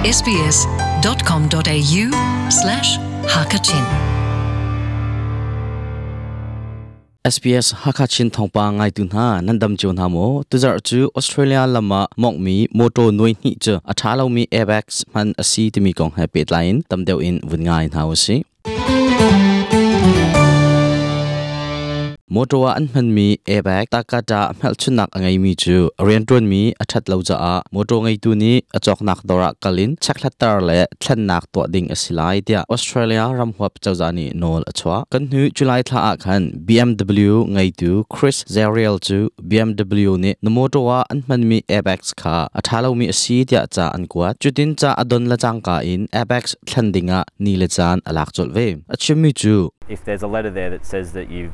sbs.com.au slash hakachin SBS Hakachin thawngpang ngaitu hna nan dam cio hna maw? Tuzarh cu Australia lam ah mawngmi motor nuai hnih cu a ṭha lomi airbags hman a si timi kong he pehtlai in tam deuh in vun ngai hna u sih. Motor ah an hmanmi airbag takata hmelchunhnak a ngeimi cu a rianṭuanmi a ṭhat lo caah motor ngeitu nih a cawknak dawr ah kal in checkhlatter le thlennak tuah ding a si lai tiah Australia ramhuap cozah nih nawl a chuah. Kan hnu July thla ah khan BMW ngeitu Chris Zariel cu BMW nih na motor ah an hmanmi airbags kha a ṭha lomi a si tiah ca an kuat. Cutin ca a don le cangka in airbags thlen dingah ni le caan a lak colh ve. A chimmi cu If there's a letter there that says that you're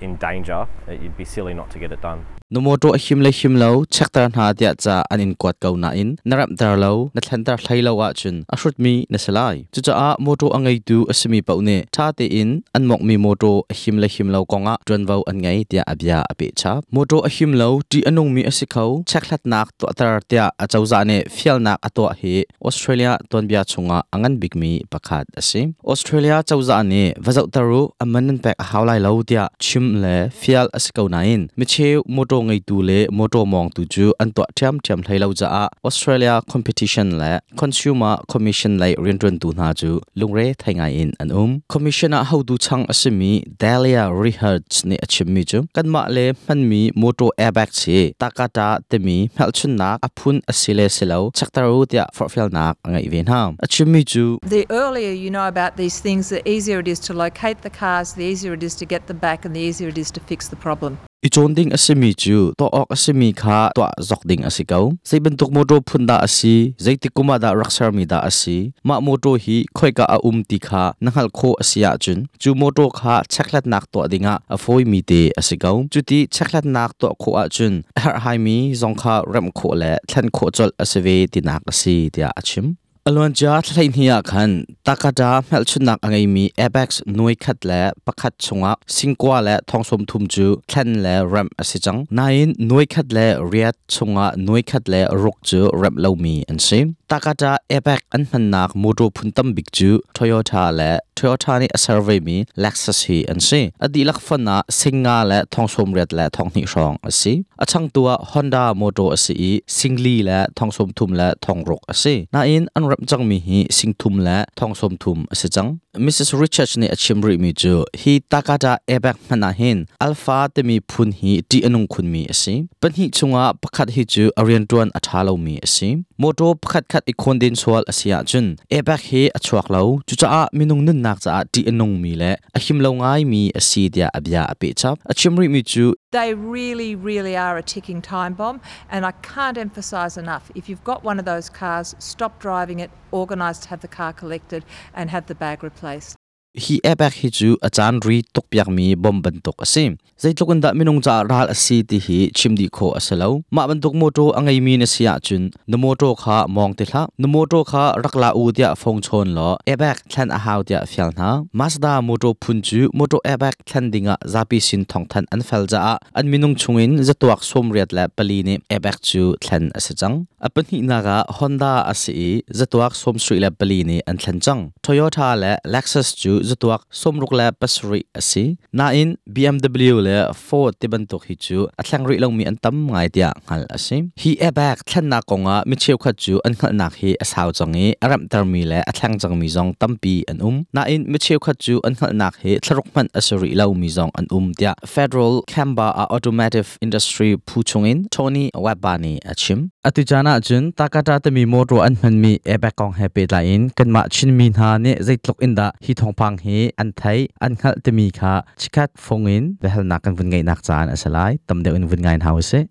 in danger, you'd be silly not to get it done. Na mawṭaw a him le him lo chekter hna tiah ca an in kuat ko nain na remhter lo, na thlenter hlei lo ahcun a hrutmi na si lai. Cucaah mawṭaw a ngeitu a simi paoh nih ṭha tein an mawnghmi mawṭaw a him le him lo kongah ṭuanvo an ngei tiah a bia a peh chap. Mawṭaw a him lo, ṭih a nungmi a si kho, chekhlatnak tuahter tiah acozah nih fialnak a tuah hi Australia tuanbia chungah a ngan bikmi pakhat a si. Australia cozah nih va zohter u, a man nan pek a hau lai lo tiah chim le fial a si ko nain micheu motor ngeitu le motor mawngtu cu an tuah ṭhiamṭhiam hlei lo caah Australia Competition le Consumer Commission lei rianṭuantu hna cu lungre thei ngai in an um. Commission ah hotu chang a simi Delia Rihards nih a chimmi cu kanmah le hmanmi motor airbags hi takata timi hmelchunnak a phun a si le si lo chekter u tiah forhfialnak a ngeih ve hna. A chimmi cu The earlier you know about these things, the easier it is to locate the cars, the easier it is to get them back, and the easier it is to fix the problem. I cawn ding a simi cu tuah awk a simi kha tuah zok ding a si ko. Zei bantuk mawṭaw phun dah a si, zeitik kum ah dah rak sermi dah a si, mah mawṭaw hi khoika a um ti kha na hngalh khawh a si ahcun cu mawṭaw kha chekhlatnak tuah dingah a fawimi te a si ko. Cuti chekhlatnak tuah khawh ahcun a herhhaimi zong kha remh khawh le thlen khawh colh a si ve tinak a si tiah a chim. A luancia thla hleihnih ah khan Takata hmelchunhnak a ngeimi Apex nuai khat le pakhat chungah singkua le thong sawm thum cu thlen le remh a si cang. Nain nuai khat le riat chungah nuai khat le ruk cu remh lomi an si. Takata Apex an hmannak motor phun tam bik cu Toyota le Toyota nih a ser vemi Lexus hi an si. A dihlak fon ah singa le thong sawm riat le thong hnih hrawng a si. A changtu ah Honda motor a si i singli le thong sawm thum le thong ruk a si. Nain an remh cangmi hi sing thum le thong sawm thum a si cang. Mrs. Richards nih a chim rihmi cu hi Takata airbag hmanh ah hin Alpha timi phun hi ṭih a nung khunmi a si. Pahnih chungah pakhat hi cu a rianṭuan a ṭha lomi a si. Motor pakhat khat i khawnden sual a si ahcun airbag hi a chuak lo. Cucaah minung nunnak caah ṭih a nungmi le a him lo ngaimi a si tiah a bia a peh chap. A chim rihmi cu They really, really are a ticking time bomb, and I can't emphasise enough if you've got one of those cars, stop driving it, organise to have the car collected, and have the bag replaced. Hi airbag hi cu a caan ri tukpiakmi bom bantuk a si. Zeitluk in dah minung caah ral a si ti hi chim dih khawh a si lo. Mah bantuk mawṭaw a ngeimi na si ahcun na mawṭaw kha mawng ti hlah. Na mawṭaw kha rak la u tiah phone chawn law airbag thlen a hau tiah fial hna. Mazda mawṭaw phun cu mawṭaw airbag thlen dingah zapi sin thawngthanh an fel caah an minung chungin zatuak 84 nih airbag cu thlen a si cang. A pahnihnak ah Honda a si i zatuak 74 nih an thlen cang. Toyota le Lexus cu zatuak 67 a si. Nain BMW le Ford ti bantuk hi cu a thleng rih lomi an tam ngai tiah hngalh a si. Hi airbag thlennak kongah mi cheukhat cu an hngalhnak hi a sau cang i a remhtermi le a thleng cangmi zong tampi an um. Nain mi cheukhat cu an hngalhnak hi thlaruk hmanh a si rih lomi zong an um tiah Federal Chamber of Automotive Industry phu chungin Tony Webber nih a chim. Atu caan ahcun Takata timi motor an hmanmi airbag kong he pehtlai in kanmah Chinmi hna nih zeitluk in dah hi thawngpang hi an theih, an hngalh timi kha chikkhat fung in biahalnak kan vun ngeihnak caan a si lai. Tam deuh in vun ngai hna usih.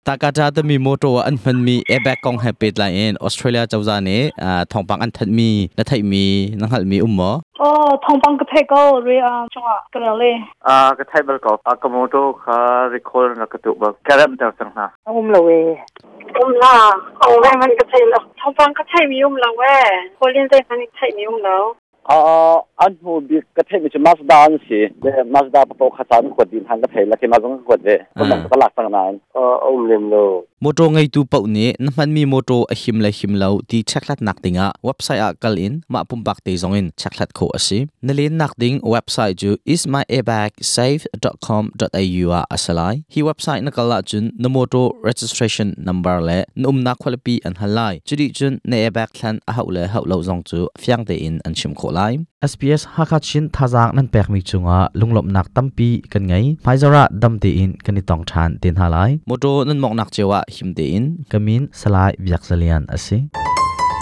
Takata timi motor an hmanmi airbag kong he pehtlai in Australia cozah nih thawngpang an thanhmi na theihmi na hngalhmi um maw? Oh, thawngpang ka theih ko ri chungah ka rel i. Ka theih bal ko. Ka motor kha recall na ka tuh bal. Ka remh ter cang hna. Um lo e. Um la. Ong ve man ka thei lo. Thawngpang ka theih mi um lo e. Kawlin zei hmanh theih mi um lo. An hnu bik ka theih mi cu Mazda an si. Mazda papo kha caan kuat din han ka thei la ke ma zong ka kuat ve. Ka lak cang nain. Um lem lo. Motor ngeitu paoh nih na hmanmi motor a him le him lo ti chekhlatnak dingah website ah kal in mah pumpak te zong in chekhlat khawh a si. Na lennak ding website cu ismyairbagsafe.com.au ah a si lai. Hi website na kal ahcun na motor registration number le na umnak khualipi an hal lai. Cuti cun na airbag thlen a hauh le hauh lo zong cu fiang tein an chim khawh lai. SBS Hakha Chin thazaang nan pekmi cungah lunglawmhnak tampi kan ngei. Hmaizarh ah dam tein kan i tong ṭhan te hna lai. Motor nan mawngnak cio ah him tein. Ka min Salai Biak Zalian a si.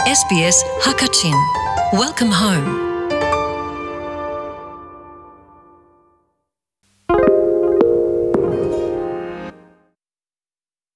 SBS Hakachin. Welcome home.